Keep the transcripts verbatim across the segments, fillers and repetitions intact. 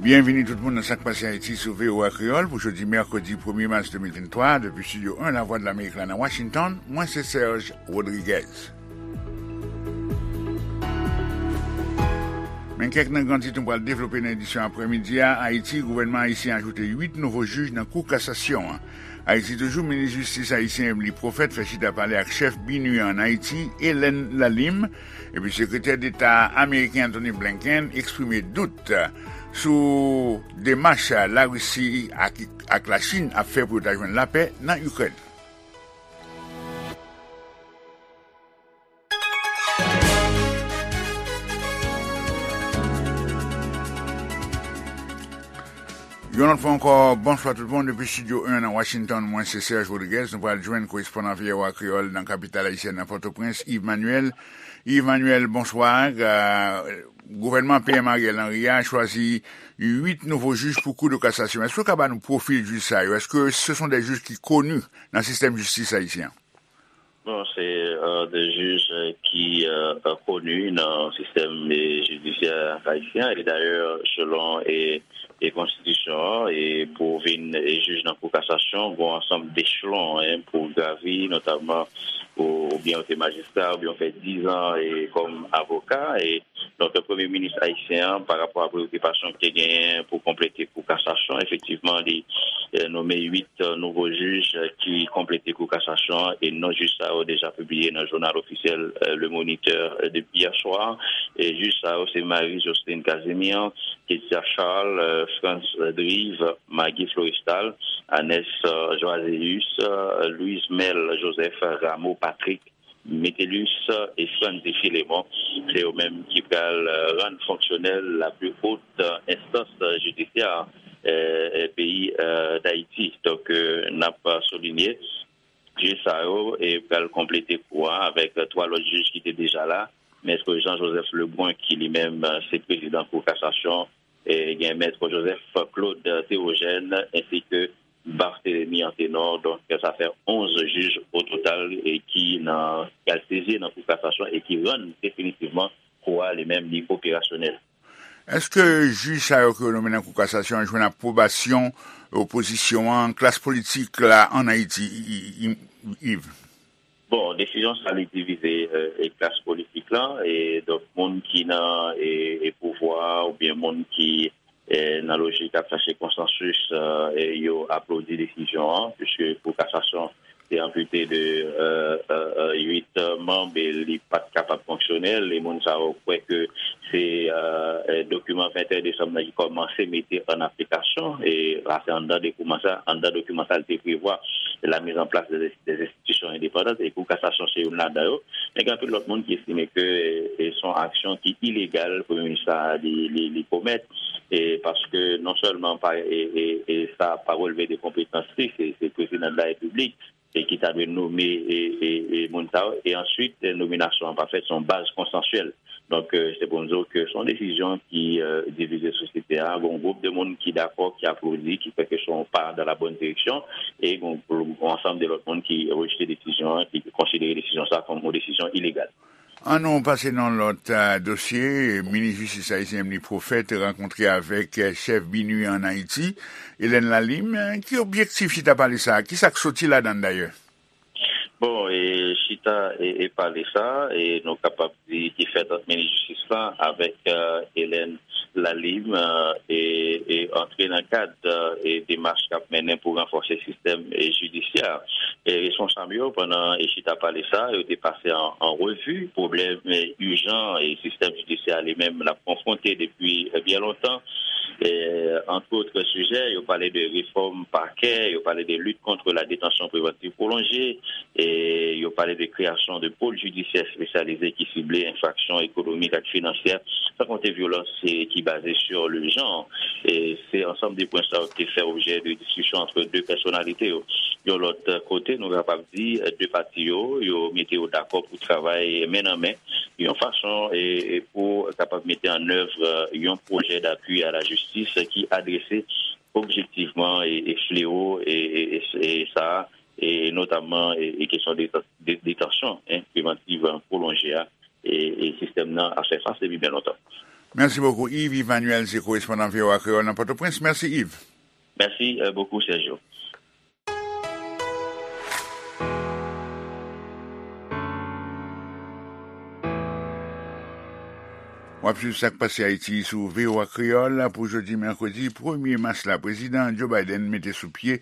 Byenvini tout moun nan Sak Pase Ayiti sou V O A Kreyòl pou jodi mèkredi premye mas de mil venntwa, depi Estidyo en Lavwadlamerik la nan Washington, mwen se Serge Rodriguez. Men kèk nan gran tit nou pral devlope nan edisyon aprèmidi a. Ayiti, gouvènman ayisyen ajoute uit nouvo jij nan Kou Kasasyon an. Ayiti toujou, minis jistis ayisyen Emely Prophète fè chita pale ak chèf BINUH an Ayiti, Hélène Lalim, epi sekretè deta ameriken Antony Blinken eksprime dout sou demach Larisi ak, ak Lachin ap fè pou yo ta jwenn lapè nan Ikrèn. Yon lòt fwa ankò, bonswa tout moun depi Estidyo en nan Washington. Mwen se Serge Rodriguez. Nou pral jwenn korespondan V O A Kreyòl nan kapital ayisyèn nan Pòtoprens, Yves Manuel. Yves Manuel, bonswa. Euh, gouvènman P M Ariel Henry a chwazi uit nouvo jij pou Kou de Kasasyon. Èske w ka ba nou pwofil jij sa yo? Èske se sont des juges ki koni nan sistèm jistis ayisyen an? Bon, se euh, de jij euh, ki euh, euh, koni nan sistèm eh, jidisyè ayisyen. E dayè, selon e, e konstitisyon an, e pou vin e jij nan Kou Kasasyon, gon ansanm dechelon en, pou gravi, notamman ou, oubyen ou te majistra, oubyen ou fè diz an e kòm avoka. E Donk, premye minis ayisyen an, pa rapò a preyokipasyon ki te genyen pou konplete Kou Kasasyon, efektivman, li eh, nonmen uit eh, nouvo jij eh, ki konplete Kou Kasasyon an, e non jij sa yo deja pibliye nan jounal ofisyèl eh, Le Moniteur eh, depi yè swa. E jij sa yo se Marie Jocelyne Casimir, Ketia Charles, eh, Frantz Drive, Maggie Florestal, Anès eh, Joaséus, eh, Louise Mel Joseph, Rameau Patrick, Metellus e Franzy Philémon, se yo menm ki pral rann fonksyonèl la pli wot enstans jidisyè peyi Dayiti. Donk, n ap soulinye, jij sa yo pral konplete kou a avèk twa lòt jij ki te deja la, Mèt Jean Joseph Lebrun, ki li menm se prezidan Kou Kasasyon, gen Mèt Joseph Claude Théogène, ensi ke Barthélemy Anténor. Donk, sa fè onz jij ototal e ki nan, ki al sezi nan Kou Kasasyon e ki rann definitivman kou a li menm li operasyonèl. Èske jij sa yo ke yo nonmen nan Kou Kasasyon an jwenn apwobasyon opozisyon an, klas politik la ann Ayiti, Yves? Bon, desizyon sa li divize e klas politik la, e donk moun ki nan e, e pouvwa oubyen moun ki e, nan lojik ap chache konsansis, e, yo aplodi desizyon an, piske Kou Kasasyon te anpite de e, e, e, uit manm e li pa t kapab fonksyonèl. E moun sa yo kwè ke se e, e, dokiman venteyen desanm nan ki kòmanse mete an aplikasyon. E, sa se anndan dokiman sa, anndan dokiman sa, li te prevwa la mise en place des, des institutions indépendantes. E Kou Kasasyon se youn ladan yo. Men gen anpil lòt moun ki estime ke e, e, se yon aksyon ki ilegal premye minis la li, li, li komèt, e, paske non sèlman pa, e, e, e, sa pa relve de konpetans li, se, se prezidan de la repiblik e ki ta dwe nome e, e, e, moun sa yo, e answit, e, nominasyon an pa fèt, se yon baz konsansyèl. Donk, e, se pou n di w ke se yon desizyon ki e, divize sosyete a. Gon gwoup de moun ki dakò, ki aplodi, ki kwè ke se yon pa dans la bonne direction, e gon, gon ansanm de lòt moun ki rejte desizyon an, ki konsidere desizyon sa kòm yon desizyon ilegal. Ann nou pase nan lòt e, dosye. Minis jistis ayisyen Emely Prophète rankontre avèk e, chèf BINUH ann Ayiti, Hélène Lalim. E, ki objektif chita pale sa a? Ki sa k soti ladan l dayè? Bon, e, chita e, e pale sa, e nou kapab di ki fèt ant minis jistis la avèk e, Hélène Lalim, e, e, e antre nan kad e, demach k ap mennen pou ranfòse sistèm e, jidisyè. E responsab yo, pandan e chita pale sa, yo te pase an, an revi pwoblèm e, ijan e sistèm jidisyè a li menm l ap konfwonte depi e, byen lontan. E, entre autres sujets, yo pale de refòm pakè, yo pale de lutte contre la détention préventive prolongée, e yo pale de kreyasyon de pôle judiciaire spécialisé ki sible enfraksyon ekonomik ak finansyè, san konte vyolans e, ki baze sur le genre. E se ansanm de pwen sa yo te fè objè de diskisyon ant de pèsonalite yo. Yon lòt kote, nou kapab di, de pati yo, yo mete yo dakò pou travay men nan men, yon fason e, e pou kapab mete an èv yon pwojè d'appui à la justice ki adrese objektivman e, e fleo e, e, e, e sa, e notamman e, e kesyon de, de, detansyon en, prevantiv pwolonje a, e, e sistèm nan ap fè fas depi byen lontan. Mèsi bokou, Yves Emmanuel, se korespondan V O A Kreyòl nan Pòtoprens. Mèsi, Yves. Mèsi, euh, bokou, Sergio. W ap swiv Sa k Pase Ayiti sou V O A Kreyòl pou jodi mèkredi premye mas la. Prezidan Joe Biden mete sou pye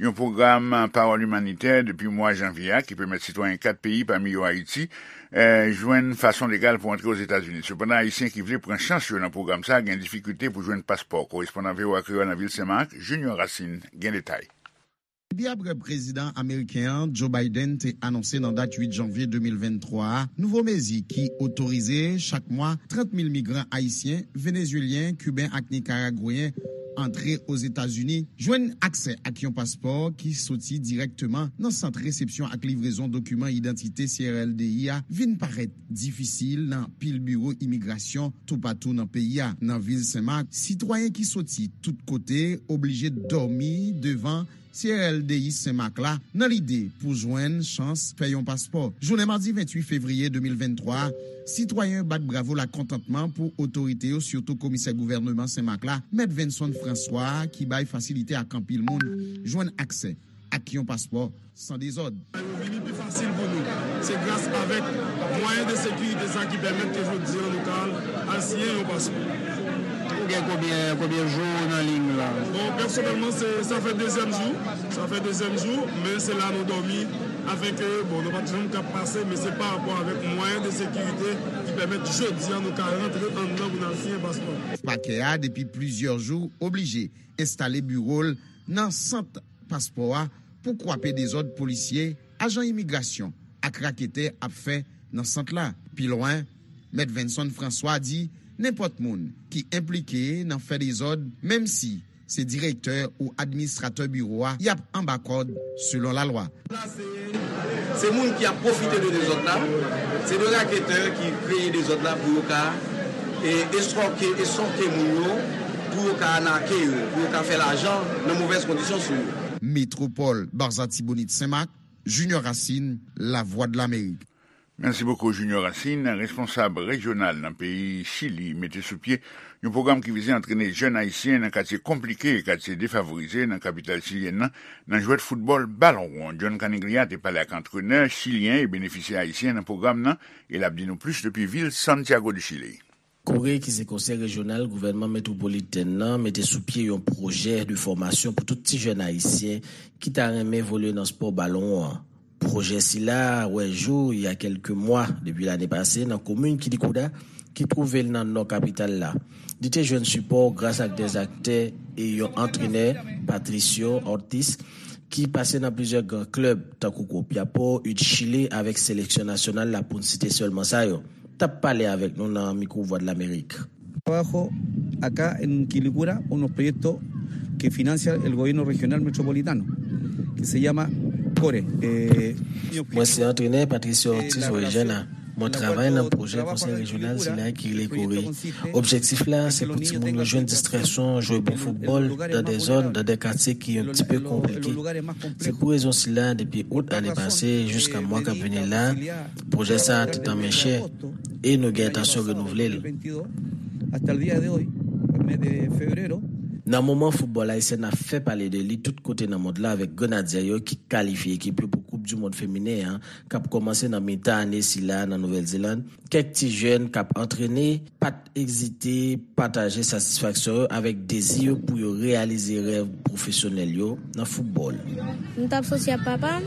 yon pwogram pawòl imanitè depi mwa janvye a ki pèmèt sitwayen kat peyi, pami yo Ayiti, eh, jwenn fason legal pou antre Ozetazini. Sepandan, Ayisyen ki vle pran chans yo nan pwogram sa a gen difikilte pou jwenn paspò. Korespondan V O A Kreyòl nan vil Senmak, Junior Racine, gen detay. Epi apre prezidan ameriken an, Joe Biden, te anonse nan dat uit janvye de mil venntwa a nouvo mezi ki otorize chak mwa trant mil migran ayisyen, venezuelyen, kiben ak nikaragweyen antre Ozetazini, jwenn aksè ak yon paspò ki soti dirèkteman nan sant resepsyon ak livrezon dokiman idantite C R L D I a, vin parèt difisil nan pil biwo imigrasyon toupatou nan peyi a. Nan vil Senmak, sitwayen ki soti tout kote oblije dòmi devan C R L D I Senmak la nan lide pou jwenn chans fè yon paspò. Jounen madi venntuit fevriye de mil venntwa a, sitwayen yo bat bravo lakontantman pou otorite yo, sitou komisè gouvèneman Senmak la, Mèt Venson François, ki bay fasilite ak anpil moun jwenn aksè ak yon paspò san dezòd. Yo vini pi fasil pou nou. Se gras avèk mwayen de sekirite sa ki pèmèt ke jodi an nou ka al, al siyen yon paspò. Ou gen konbyen, konbyen jou nan liy la? Bon, pèsonèlman, se, sa fè dezyèm jou. Sa fè dezyèm jou, men se la nou dòmi. Afenke, bon, nou pa t janm ka pase, men se pa rapò avèk mwayen de sekirite ki pèmèt jodi an nou ka rantre anndan pou n al siyen paspò. Pakè a, depi plizyè jou, oblije enstale biwo l nan sant paspò a pou kwape dezòd polisye, ajan imigrasyon ak raketè ap fè nan sant la. Pi lwen, Mèt Venson François di nenpòt moun ki enplike nan fè dezòd, menm si se direktè ou administratè biwo a, y ap anba kòd selon lalwa. Se moun ki ap pwofite de dezòd la, se de raketè ki kreye dezòd la pou yo ka, e, estwòke, estwòke moun yo, pou yo ka anake yo, pou yo ka fè lajan nan movèz kondisyon sou yo. Metwopòl Barzatibonit Senmak, Junior Racine, Lavwadlamerik. Mèsi bokou, Junior Racine. Responsab rejyonal nan peyi Chili mete sou pye yon pwogram ki vize antrene jèn ayisyen nan katye konplike, katye defavorize nan kapital chilyèn nan, nan jwèt foutbòl balon won. John Caniglia te pale ak antrenè chilyen e benefisyè ayisyen nan pwogram nan, e l ap di nou plis depi vil Santiago de Chile. Kore, ki se konsèy rejyonal gouvènman metwopolitèn nan, mete sou pye yon pwojè de fòmasyon pou tout ti jèn ayisyen ki ta renmen evolye nan spò balon won an. Pwojè sila a wè jou il y a quelques mois, depi lane pase, nan komin Quilicura, ki twouve l nan nò kapital la. Li te jwenn sipò gras ak dè aktè e yon antrenè, Patricio Ortiz, ki pase nan plizyè gran klèb, tankou Copiapó, U de Chile, avèk seleksyon nasyonal la, pou n site sèlman sa yo. T ap pale avèk nou nan mikwo Vwadlamerik. Trabajo acá en Quilicura unos proyectos que financia el gobierno regional metropolitano, que se llama CORE. Eh, Mwen se antrenè Patricio Ortiz Orejana. Mwen travay nan pwojè konsèy rejyonal sila ki rele Kore. Objektif la, se pou timoun yo jwenn distraksyon, jwe bon foutbòl, nan de zòn, nan de katye ki yon ti pe konplike. Se pou rezon sila, depi out ane pase, jiska mwa k ap vini la, pwojè sa a te tanmen chè, e nou gen entansyon renouvle l. Nan moman foutbòl ayisyen ap fè pale de li tout kote nan mond la avèk Grenadyè yo ki kalifye ekip yo pou Koup di Mond Feminen an, k ap kòmanse nan mitan ane sila nan Nouvèl Zeland, kèk ti jèn k ap antrene pa t ezite pataje satisfaksyon yo avèk dezi yo pou yo reyalize rèv pwofesyonèl yo nan foutbòl. M t ap soti ak papa m,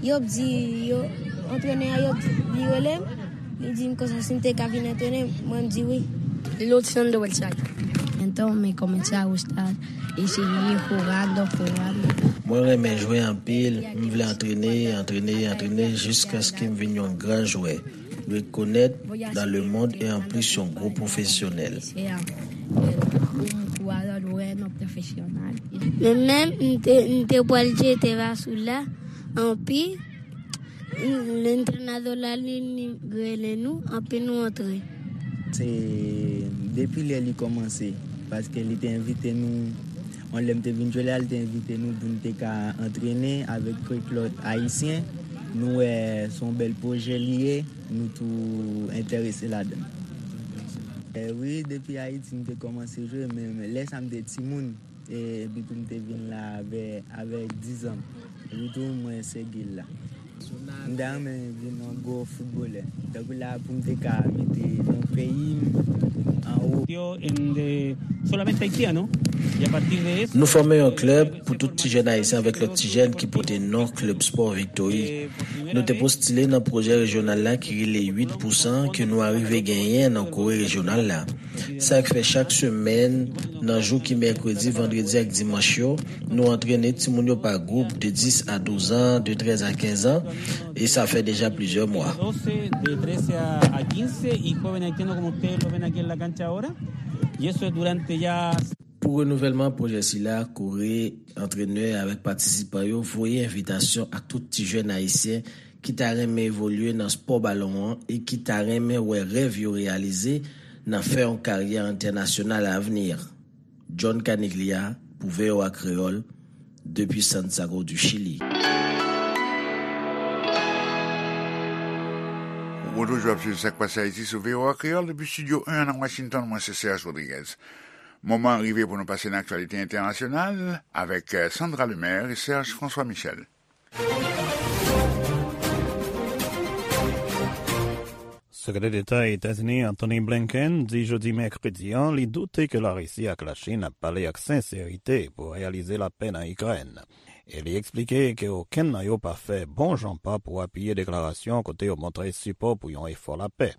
yo di, yo, antrenè a, yo di, li rele m, li di m konsa si m te ka vin antrenè, mwen m di wi. Luciano del Valle. Entonces comencé a gustar y seguí jugando, jugando. Mwen renmen jwe anpil, m vle antrene, antrene, antrene jiskaske m vin yon gran jwè, rekonèt dans le monde e anplis yon gwo pwofesyonèl. Sea un jugador bueno, profesional. Men menm m te, m te pral jete basou la, anpi lentrenadò la li, li rele nou, anpi nou antre. Se depi lè li kòmanse, paske li te envite nou, yon lè m te vin jwe la, li te envite nou pou n te ka antrene avèk kèk lòt ayisyen. Nou wè se yon bèl pwojè li ye, nou tou enterese ladan l. Eh, wi, depi Ayiti m te kòmanse jwe, men lè sa m te timoun, e, epi tou m te vin la avè, avè dizan. Epi tou mwen se gil la. M ta renmen vin yon gwo foutbolè. Tankou la pou m te ka mete non peyi m anwo. Yo en de solamente haitiano y a partir de eso. Nou fòme yon klèb pou tout ti jèn ayisyen avèk lòt ti jèn ki pote non klèb spò Viktori. Nou te postile nan pwojè rejyonal la ki rele uit pou san ke nou arive genyen nan Kore rejyonal la. Sa k fè chak semèn, nan jou ki mèkredi, vandredi ak dimanch yo, nou antrene timoun yo pa gwoup de dis a douz an, de trèz a kenz an, e sa fè deja plizyè mwa. Doce, de trece a quince, y joven haitiano como ustedes lo ven aquí en la cancha ahora. Y eso es durante ya. Pou renouvèlman pwojè sila, Kore, antrenè avèk patisipan yo voye envitasyon ak tout ti jèn ayisyen ki ta renmen evolye nan spò balon an e ki ta renmen wè rèv yo reyalize nan fè yon karyè entènasyonal avni. John Caniglia pou V O A Kreyòl, depi Santiago du Chili. Ou toujou ap swiv Sa k Pase Ayiti sou V O A Kreyòl depi Estidyo en nan Washington, mwen se Serge Rodriguez. Moman an rive pou nou pase nan aktyalite entènasyonal avèk, eh, Sandra Lemaire e Serge François Michel. Sekretè Deta Etazini Antony Blinken di jodi mèkredi an li doute ke Larisi ak Lachin ap pale ak senserite pou reyalize lapè nan Ikrèn. E li eksplike ke okenn nan yo pa fè bon jan pa pou apiye deklarasyon kote yo montre sipò pou yon efò lapè.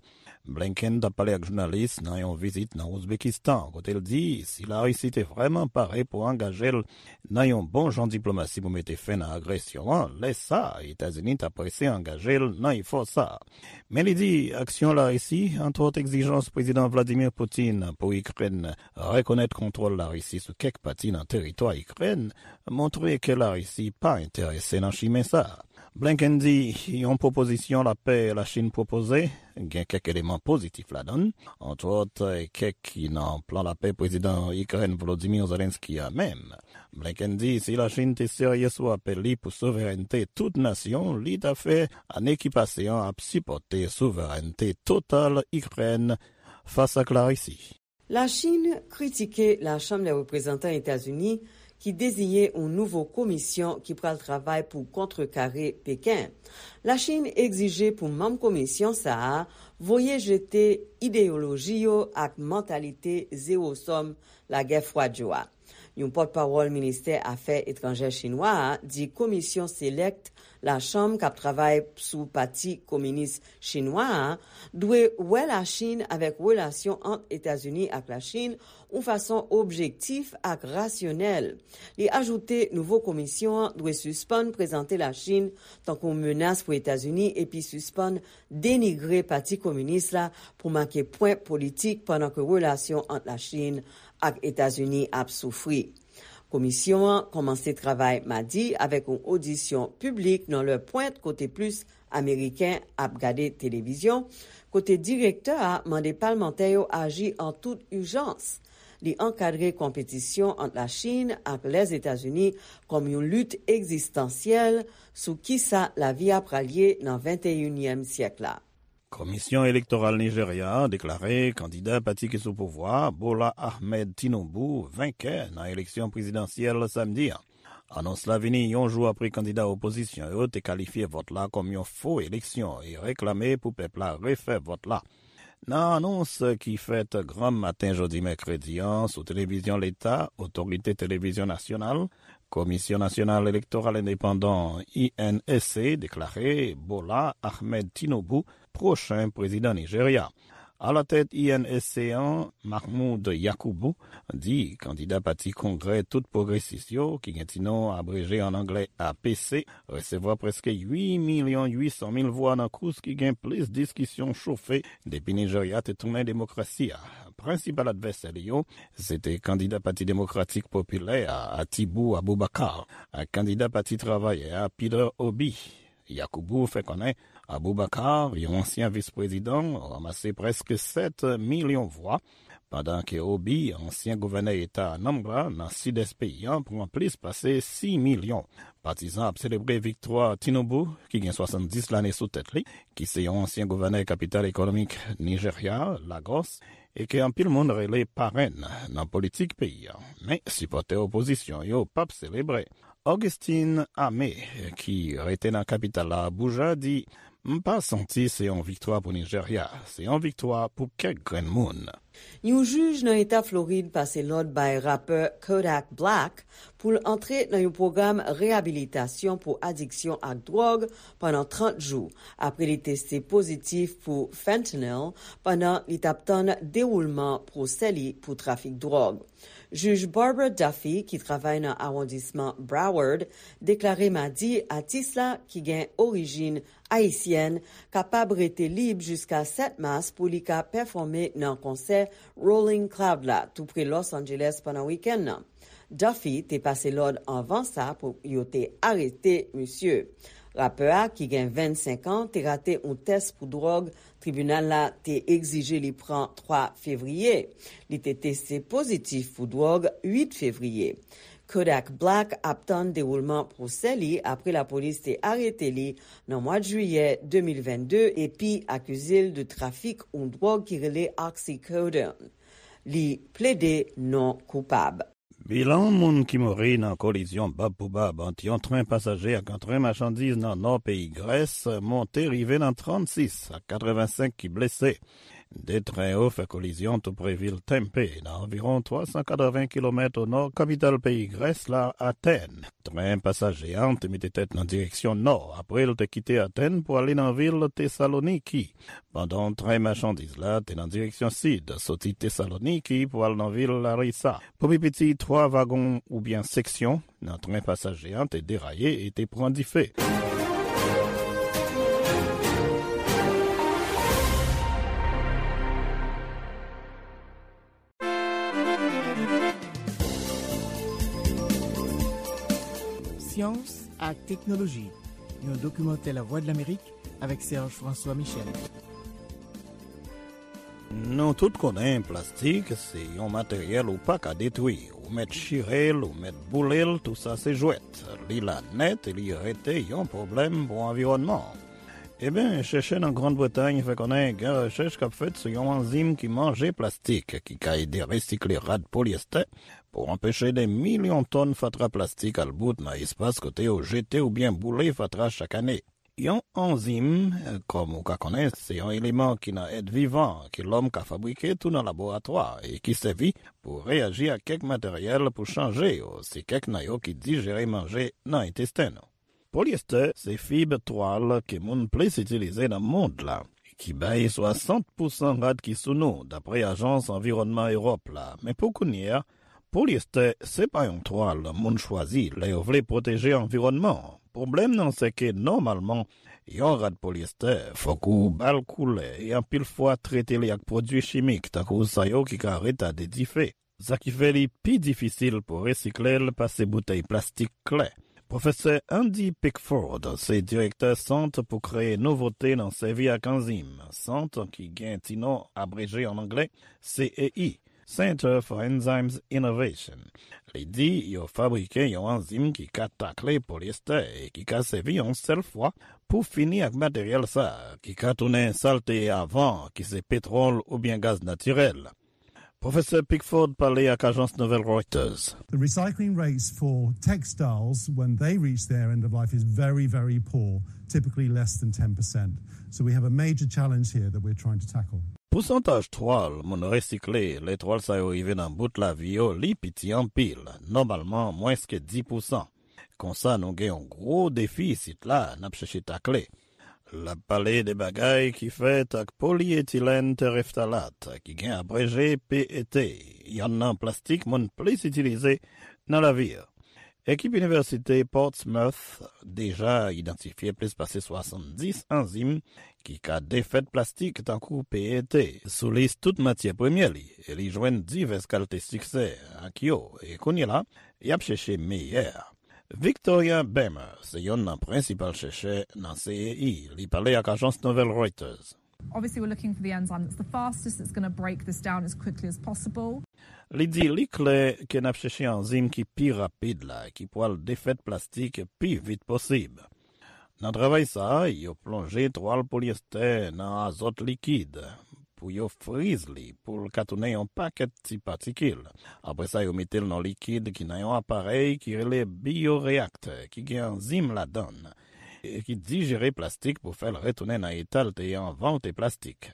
Blinken t ap pale ak jounalis nan yon vizit nan Ouzbekistan, kote l di si Larisi te vrèman pare pou angaje l nan yon bon jan diplomasi pou mete fen nan agresyon an, lè sa a, Etazini t ap prese angaje l nan efò sa a. Men li di aksyon Larisi, antwòt egzijans Prezidan Vladimir Putin pou Ikrèn rekonèt kontwòl Larisi sou kèk pati nan teritwa Ikrèn, montre ke Larisi pa enterese nan chimen sa a. Blinken di yon pwopozisyon lapè Lachin pwopoze gen kèk eleman pozitif ladan l, antwòt kèk ki nan plan lapè Prezidan Ikrèn Volodymyr Zelensky a menm. Blinken di si Lachin te serye sou apèl li pou souverènte tout nasyon, li ta fè ane ki pase an ap sipòte souverènte total Ikrèn fas ak Larisi. Lachin kritike Lachanm dè Reprezantan Etazini ki deziyen yon nouvo komisyon ki pral travay pou kontrekare Peken. Lachin egzije pou manm komisyon sa a voye jete ideyoloji yo ak mantalite zewo sòm lagè fwad yo a. Yon pòtpawòl ministè afè etranjè chinwa a di komisyon selèk Lachanm k ap travay sou Pati Kominis Chinwa a dwe wè Lachin avèk relasyon ant Etazini ak Lachin yon fason objektif ak rasyonèl. Li ajoute nouvo komisyon an dwe sispann prezante Lachin tankou yon menas pou Etazini epi sispann denigre Pati Kominis la pou make pwen politik pandan ke relasyon ant Lachin ak Etazini ap soufri. Komisyon an kòmanse travay madi avèk yon odisyon piblik nan lè pwent kote plis Ameriken ap gade televizyon, kote direktè a mande palmantè yo aji an tout ijans. Li ankadre konpetisyon ant Lachin ak Lèzetazini kòm yon lit egzistansyèl sou kisa lavi a pral ye nan venteyinyèm syèk la. Komisyon Elektoral Nijerya a deklare kandida pati ki sou pouvwa a, Bola Ahmed Tinubu, venkè nan eleksyon prezidansyèl samdi a. Anons la vini yon jou apre kandida opozisyon yo te kalifye vòt la kòm yon fo eleksyon e reklame pou pèp la refè vòt la. Nan anons ki fèt granm maten jodi mèkredi an sou televizyon leta, Otorite Televizyon Nasyonal, Komisyon Nasyonal Elektoral Endepandan, I N E C, deklare Bola Ahmed Tinubu pwochen prezidan Nijerya. Alatèt I N E C an, Mahmoud Yakubu, di kandida pati Kongrè Tout Pwogresis yo, ki gen ti non abreje an anglè A P C, resevwa prèske uit milyon uit san mil vwa nan kous ki gen plis diskisyon chofe depi Nijerya te tounen demokrasi a. Prensipal advèsè li yo, se te kandida Pati Demokratik Popilè a, Atibu Abubakar, ak kandida Pati Travayè a, Peter Obi. Yakubu fè konnen Abubakar, yon ansyen vis-prezidan, ranmase prèske sèt milyon vwa, pandan ke Obi, ansyen gouvènè eta Anambra, nan sidès peyi a, pran plis pase sis milyon. Patizan ap selebre viktwa Tinubu, ki gen swasanndis lane sou tèt li, ki se yon ansyen gouvènè kapital ekonomik Nijerya, Lagos, e ke anpil moun rele parenn nan politik peyi a. Men, sipòtè opozisyon yo p ap selebre. Augustine Ame, ki rete nan kapital la, Abuja, di: "M pa santi se yon viktwa pou Nijerya, se yon viktwa pou kèk grenn moun." Yon jij nan eta Florid pase lòd bay rapè Kodak Black pou l antre nan yon pwogram reyabilitasyon pou adiksyon ak dwòg pandan trant jou, apre li teste pozitif pou fentanyl pandan li t ap tann dewoulman pwosè li pou trafik dwòg. Jij Barbara Duffy, ki travay nan awondisman Broward, deklare madi atis la, ki gen orijin ayisyèn, kapab rete lib jiska sèt mas pou li ka pèfòme nan konsè Rolling Cloud la, tou pre Los Angeles, pandan wikenn nan. Duffy te pase lòd anvan sa pou yo te arete misye. Rapè a, ki gen vennsenk an, te rate yon tès pou dwòg tribinal la te egzije li pran twa fevriye. Li te teste pozitif pou dwòg uit fevriye. Kodak Black ap tann dewoulman pwosè li apre lapolis te arete li nan mwa jiyè de mil vennde epi akize l de trafik yon dwòg ki rele oxycodone. Li plede non koupab. Bilan moun ki mouri nan kolizyon bab pou bab ant yon tren pasaje ak yon tren machandiz nan nò peyi Grès monte rive nan trannsis, ak katrevensenk ki blese. De tren yo fè kolizyon tou pre vil Tempe, nan anviwon twa san katreven kilomèt o nò kapital peyi Grès la, Atèn. Tren pasaje a te mete tèt nan direksyon nò, apre l te kite Atèn pou ale nan vil Tesaloniki, pandan tren machandiz la te nan direksyon sid, soti Tesaloniki pou al nan vil Larisa. Pou pi piti, twa vagon oubyen seksyon nan tren pasaje a te deraye e te pran dife. Syans ak teknoloji, yon dokimantè Lavwadlamerik avèk Serge François Michel. Nou tout konnen plastik se yon materyèl ou pa ka detwi. Ou mèt chire l, ou mèt boule l, tou sa se jwèt. Li la nèt e li rete yon pwoblèm pou anviwònman an. Ebyen, chèchè nan Grann Bretay fè konnen gen rechèch k ap fèt sou yon anzim ki manje plastik, ki ka ede resikle rad polyestè pou anpeche de milyon tòn fatra plastik al bout nan espas kote yo jete oubyen boule fatra chak ane. Yon anzim, kòm ou ka konnen, se yon eleman ki nan èt vivan ke lòm ka fabrike tou nan laboratwa e ki sèvi pou reyaji ak kèk materyèl pou chanje yo. Se kèk nan yo ki dijere manje nan entesten nou. Polyester se fib twal ke moun plis itilize nan mond la, ki bay swasant pousan rad ki sou nou, dapre Ajans Anviwònman Ewòp la. Men pou kounye a, polyester se pa yon twal moun chwazi lè yo vle pwoteje anviwònman an. Pwoblèm nan se ke nòmalman, yon rad polyester fòk ou ba l koulè e anpil fwa trete li ak pwodui chimik, tankou sa yo ki ka retade dife. Sa ki fè li pi difisil pou resikle l pase boutèy plastik klè. Pwofesè Andy Pickford se direktè Sant pou Kreye Nouvote nan Sèvi ak Anzim, sant ki gen ti non abreje an anglè, C E I, Center for Enzymes Innovation. Li di yo fabrike yon anzim ki ka takle polyester e ki ka sèvi yon sèl fwa pou fini ak materyèl sa a, ki ka tounen sa l te ye avan, ki se petwòl oubyen gaz natirèl. Pwofesè Pickford pale ak ajans nouvèl Reuters. The recycling rates for textiles when they reach their end of life is very, very poor, typically less than ten percent. So we have a major challenge here that we're trying to tackle. Pousantaj twal moun resikle lè twal sa yo rive nan bout lavi yo, li piti anpil, nòmalman mwens ke dis pousan. Konsa, nou gen yon gwo defi isit la, n ap chèche takle. L ap pale de bagay ki fèt ak polyetilèn tereftalat, ki gen abreje P E T, yonn nan plastik moun plis itilize nan lavi a. Ekip Inivèsite Portsmouth deja idantifye plis pase swasanndis anzim ki ka defèt plastik tankou P E T sou lis tout matyè premyè li, e li jwenn divès kalte siksè ak yo, e kounye la, y ap chèche meyè a. Victoria Bemer se yonn nan prensipal chèchè nan C E I. Li pale ak ajans nouvèl Reuters. Obviously, we're looking for the enzyme that's the fastest, that's going to break this down as quickly as possible. Li di li klè ke n ap chèche anzim ki pi rapid la, ki pral defèt plastik pi vit posib. Nan travay sa a, yo plonje twal polyester nan azòt likid pou yo friz li pou l ka tounen yon pakèt ti patikil. Apre sa, yo mete l nan likid ki nan yon aparèy ki rele biyoreaktè ki gen anzim ladan l e ki dijere plastik pou fè l retounen nan eta l te ye anvan l te plastik.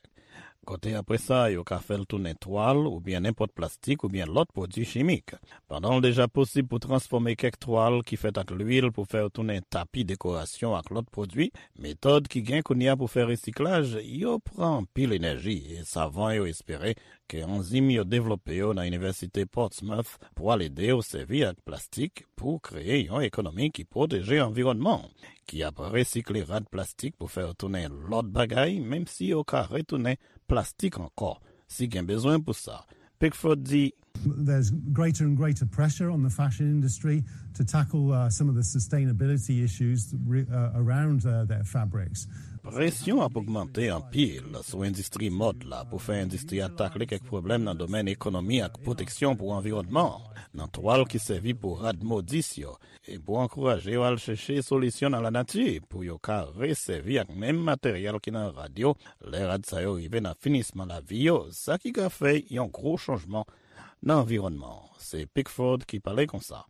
Kote apre sa, yo ka fè l tounen twal oubyen nenpòt plastik oubyen lòt pwodui chimik. Pandan l deja posib pou transfòme kèk twal ki fèt ak lwil pou fè yo tounen tapi dekorasyon ak lòt pwodui, metòd ki gen kounye a pou fè resiklaj yo pran anpil enèji e savan yo espere ke anzim yo devlope yo nan Inivèsite Portsmouth pral ede yo sèvi ak plastik pou kreye yon ekonomi ki pwoteje anviwònman, ki ap resikle rad plastik pou fè yo tounen lòt bagay, menm si yo ka retounen plastik ankò, si gen bezwen pou sa. Pickford di, There's greater and greater pressure on the fashion industry to tackle uh, some of the sustainability issues re- uh, around uh, their fabrics. Presyon ap ogmante anpil sou endistri mòd la pou fè endistri a takle kèk pwoblèm nan domèn ekonomi ak pwoteksyon pou anviwònman an, nan twal ki sèvi pou rad modis yo, e pou ankouraje yo al chèche solisyon nan lanati pou yo ka resèvi ak menm materyèl ki nan rad yo lè rad sa yo rive nan finisman lavi yo, sa ki ka fè yon gwo chanjman nan anviwònman an. Se Pickford ki pale konsa.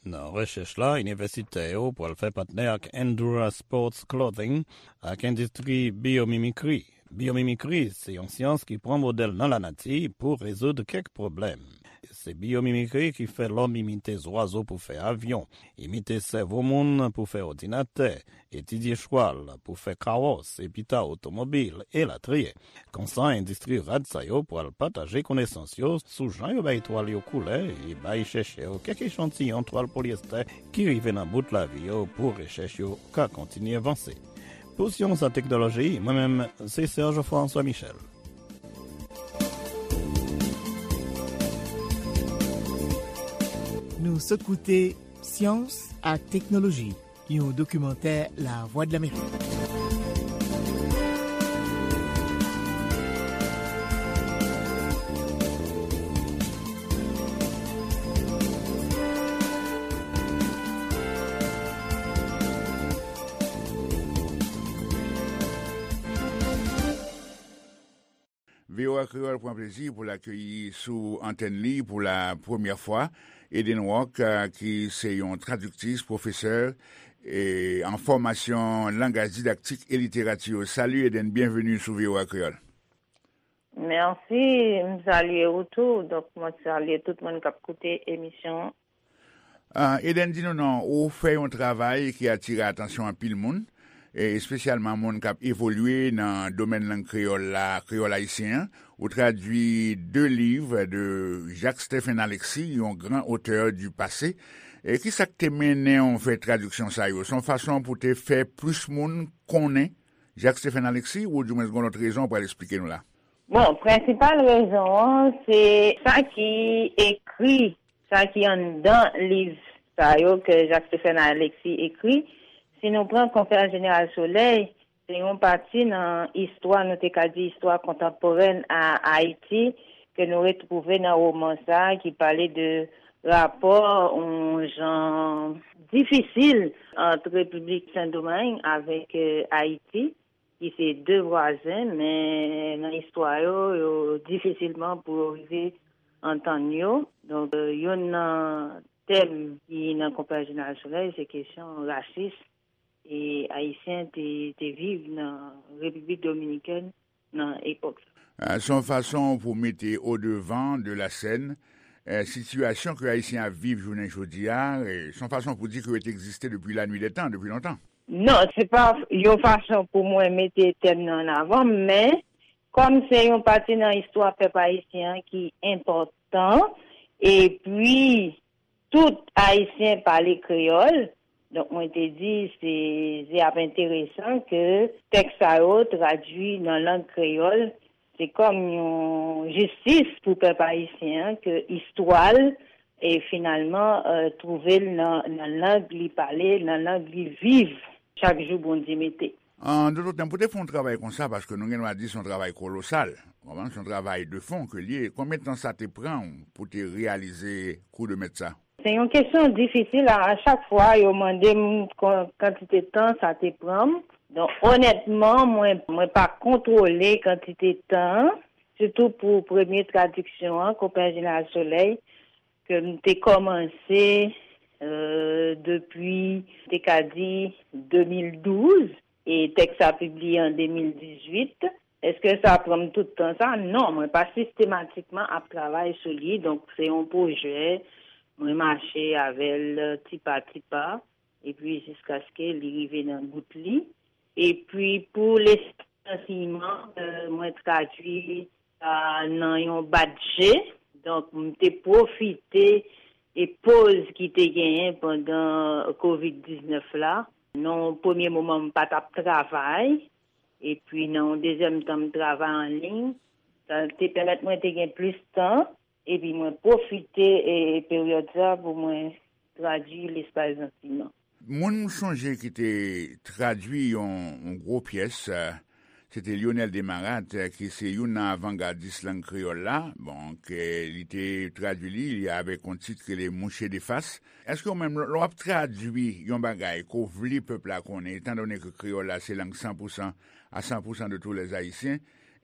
Nan rechèch la, inivèsitè yo pral fè patnè ak Endura Sports Clothing ak endistri biyomimikri. Biyomimikri se yon syans ki pran modèl nan lanati pou rezoud kèk pwoblèm. Se biyomimikri ki fè lòm imite zwazo pou fè avyon, imite sèvo moun pou fè òdinatè, etidye chwal pou fè kawòs, epi ta otomobil, elatriye. Konsa, endistri rad sa yo pral pataje konesans yo sou jan yo bay twal yo koulè e bay chèchè yo kèk echantiyon twal polyestè ki rive nan bout lavi yo pou rechèch yo ka kontinye vanse. Pou Syans ak Teknoloji, mwen menm, se Serge François Michel. Nou sot koute Syans ak Teknoloji, yon dokimantè Lavwadlamerik. V O A Kreyòl pran plezi pou l akeyi sou antèn li pou la premyè fwa Eden Rock, ki se yon tradiktris, pwofesè an fòmasyon langaj didaktik e literati. Sali Eden, byenveni sou V O A Kreyòl. Mèsi, m salye ou tou. Donk, mwen salye tout moun k ap koute emisyon an. Eden, di nou non, ou fè yon travay ki atire atansyon anpil moun, espesyalman moun k ap evolye nan domèn lang kreyòl la, kreyòl ayisyen an. Ou tradui de liv de Jacques Stephen Alexis, yon gran otè di pase. E ki sa k te mennen w fè tradiksyon sa yo? Se yon fason pou te fè plis moun konnen Jacques Stephen Alexis, oudimwens gen yon lòt rezon w pral esplike nou la? Bon, prensipal rezon an, se sa ki ekri, sa ki anndan liv sa yo ke Jacques Stephen Alexis ekri. Si nou pran Konferans Jeneral Solèy, se yon pati nan istwa, nou te ka di istwa kontanporèn a Ayiti, ke nou retwouve nan woman sa a ki pale de rapò yon jan difisil ant Repiblik Sendomeng avèk Ayiti, ki se de vwazen, men nan istwa yo, yo difisilman pou yo rive antann yo. Donk, youn nan tèm ki nan Konferans Jeneral Solèy, se kesyon rasis e Ayisyen te, te viv nan Repiblik Dominikèn nan epòk sa. Se yon fason pou mete odevan de la sèn sitiyasyon ke Ayisyen ap viv jounen jodi a. Se yon fason pou di ke yo te egziste depi lannuit dè tan, depi lontan. Non, se pa yon fason pou mwen mete tèm nan an avan, men kòm se yon pati nan istwa pèp ayisyen an ki enpòtan, epi tout Ayisyen pale kreyòl, donk mwen te di se, se ap enteresan ke tèks sa yo tradui nan lang kreyòl, se kòm yon jistis pou pèp ayisyen an ke istwa l e finalman, euh, twouve l nan, nan lang li pale, nan lang li viv chak jou Bondye mete. An dòt tèm, pou te fè yon travay konsa, paske nou gen dwa di se yon travay kolosal, w konprann, se yon travay de fon ke l ye, konbyen tan sa te pran w pou te reyalize kou de mèt sa? Se yon kesyon difisil. A, a chak fwa, yo mande m kon-, kantite tan sa te pran m. Donk, onètman, mwen, mwen pa kontwole kantite tan an, sitou pou premye tradiksyon an, Konpè Jeneral Solèy, ke m te kòmanse, euh, depi, te ka di, de mil douz, e tèks sa pibliye an de mil dizuit. Èske sa pran m tout tan sa? Non, mwen pa sistematikman ap travay sou li. Donk, se yon pwojè, mwen mache avè l ti pa ti pa, epi jiskaske li rive nan bout li. Epi, pou Lespri Ansèyman, euh, mwen tradui sa nan yon bat je. Donk, m te pwofite e poz ki te genyen pandan kovid diznèf la. Nan yon premye moman, m pa t ap travay. Epi, nan yon dezyèm tan, m travay an liy. Sa te pèmèt mwen te gen plis tan. Epi, mwen pwofite, e, peryòd sa pou mwen tradui Lespri Ansèyman. Moun m sonje ki te tradui yon, yon gwo pyès, eh, se te Lyonel Desmarattes, eh, ki se youn nan avangadis lang kreyòl la. Bon, ke li te tradui li, li avèk yon tit ki rele Mouche de Fas. Èske ou menm, lè w ap tradui yon bagay ke w vle pèp la konnen, etandone ke kreyòl la se lang san pou san, à cent pour cent de tous les Haïtiens,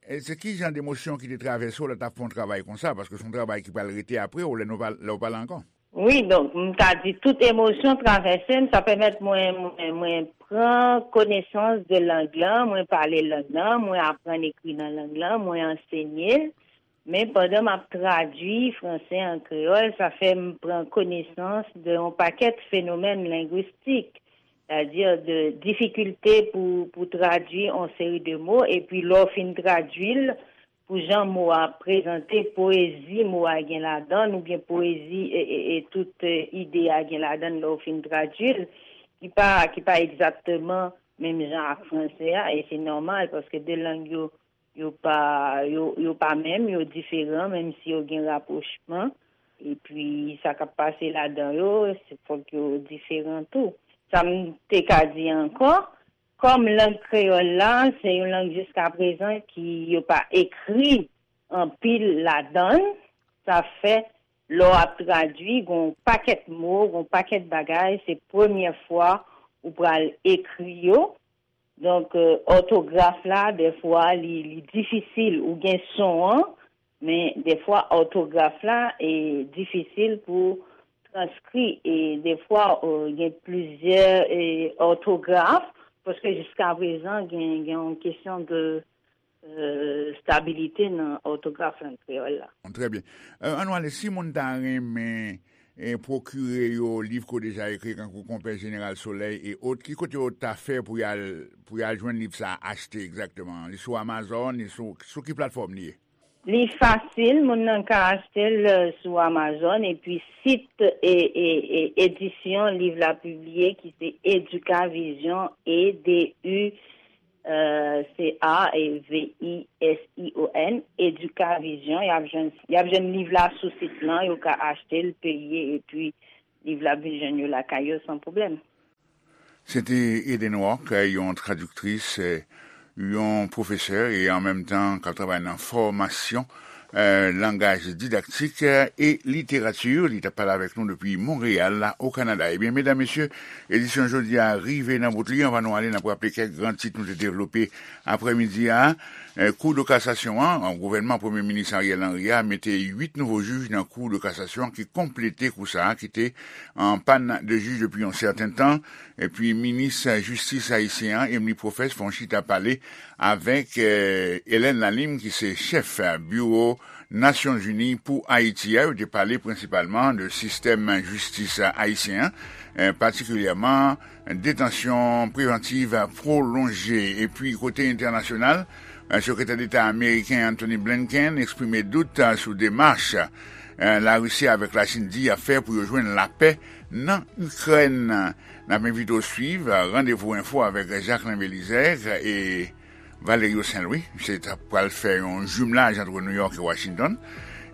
e se ki jan de emosyon ki te travèse w lè w t ap fè yon travay konsa? Paske se yon travay ki pral rete apre w lè nou pa, lè w pa la ankò. Wi, donk, m ka di tout emosyon travèse m, sa pèmèt mwen, mwen, mwen pran konesans de lang lan, mwen pale lang lan, mwen aprann ekri nan lang lan, mwen ansenye l. Men pandan m ap tradui franse an kreyòl, sa fè m pran konesans de yon pakèt fenomèn lengwistik, sètadi de difikilte pou, pou tradui yon seri de mo, epi lè w fin tradui l, pou jan mo a prezante, poezi mo a gen ladan l, oubyen poezi e, e, e tout, e, ide a gen ladan l lè w fin tradui l, ki pa, ki pa egzakteman menm jan ak franse a, e se nòmal, paske de lang yo, yo pa, yo, yo pa menm, yo diferan, menm si yo gen rapwochman. Epi, sa k ap pase ladan yo, se fòk yo diferan tou. Sa m te ka di ankò, kòm lang kreyòl la, se yon lang jiskaprezan ki yo pa ekri anpil ladan l, sa fè, lè w ap tradui, gen yon pakèt mo, gen yon pakèt bagay, se premyè fwa ou pral ekri yo. Donk, euh, òtograf la, dèfwa, li, li difisil. Ou gen son an, men dèfwa, òtograf la, e difisil pou transkri. E dèfwa, euh, gen plizyè, e, òtograf, paske jiskaprezan, gen, gen yon kesyon de, euh, stabilite nan òtograf lang kreyòl la. Trè byen. Euh, ann ale, si moun ta renmen, e, pwokire yo liv ke w deja ekri, kankou Konpè Jeneral Solèy e ot, ki kote yo ta fè pou y al, pou y al jwenn liv sa a, achte egzakteman? Li sou Amazon, li sou, sou ki platfòm li ye? Li fasil, moun nan ka achte l, euh, sou Amazon, epi sit, e, e, e, edisyon liv la pibliye, ki se Educavision, E D U, euh, C A V I S I O N, Educavision. Y ap jwenn, y ap jwenn liv la sou sit lan, yo ka achte l, peye, epi liv la vin jwenn yo lakay yo san pwoblèm. Se te Eden Rock, yon tradiktris, eh, yon pwofesè e an menm tan k ap travay nan fòmasyon, eh, langaj didaktik, eh, e literati. Li t ap pale avèk nou depi Monreyal, la, o Kanada. Ebyen, medam, mesye, edisyon jodi a rive nan bout li. Anvan nou ale, n ap raple kèk gran tit nou te devlope aprèmidi a. Eh, Kou de kasasyon an, gouvènman Premye Minis Ariel Henry a mete uit nouvo jij nan Kou de kasasyon ki konplete kou sa a ki te an pàn de jij depi yon sèten tan. Epi minis jistis ayisyen an, Emmeline Professe, fè yon chita pale avèk, eh, Hélène Lalime, ki se chèf, eh, biwo Nasyonzini pou Ayiti a. Yo te pale prensipalman de sistèm jistis ayisyen an, eh, patikilyèman detansyon prevantiv pwolonje. Epi kote entènasyonal, eh, Sekretè Deta ameriken Antony Blinken eksprime dout, eh, sou demach, eh, Larisi avèk Lachin di y ap fè pou yo jwenn lapè nan Ikrèn. N ap envite w swiv, eh, Randevou Enfo avèk Jacquelin Belizaire e Valerio Saint-Louis. Misye t ap pral fè yon jimlaj ant Nouyòk e Washington.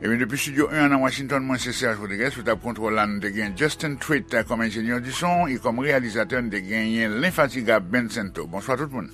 Ebyen, depi Studio en an nan Washington, mwen se Serge Rodriguez, sou tab kontwòl la, nou te gen Justin Treat kòm enjenyè di son, e kòm reyalizatè, nou te genyen lenfatigab Ben Sento. Bonswa tout moun.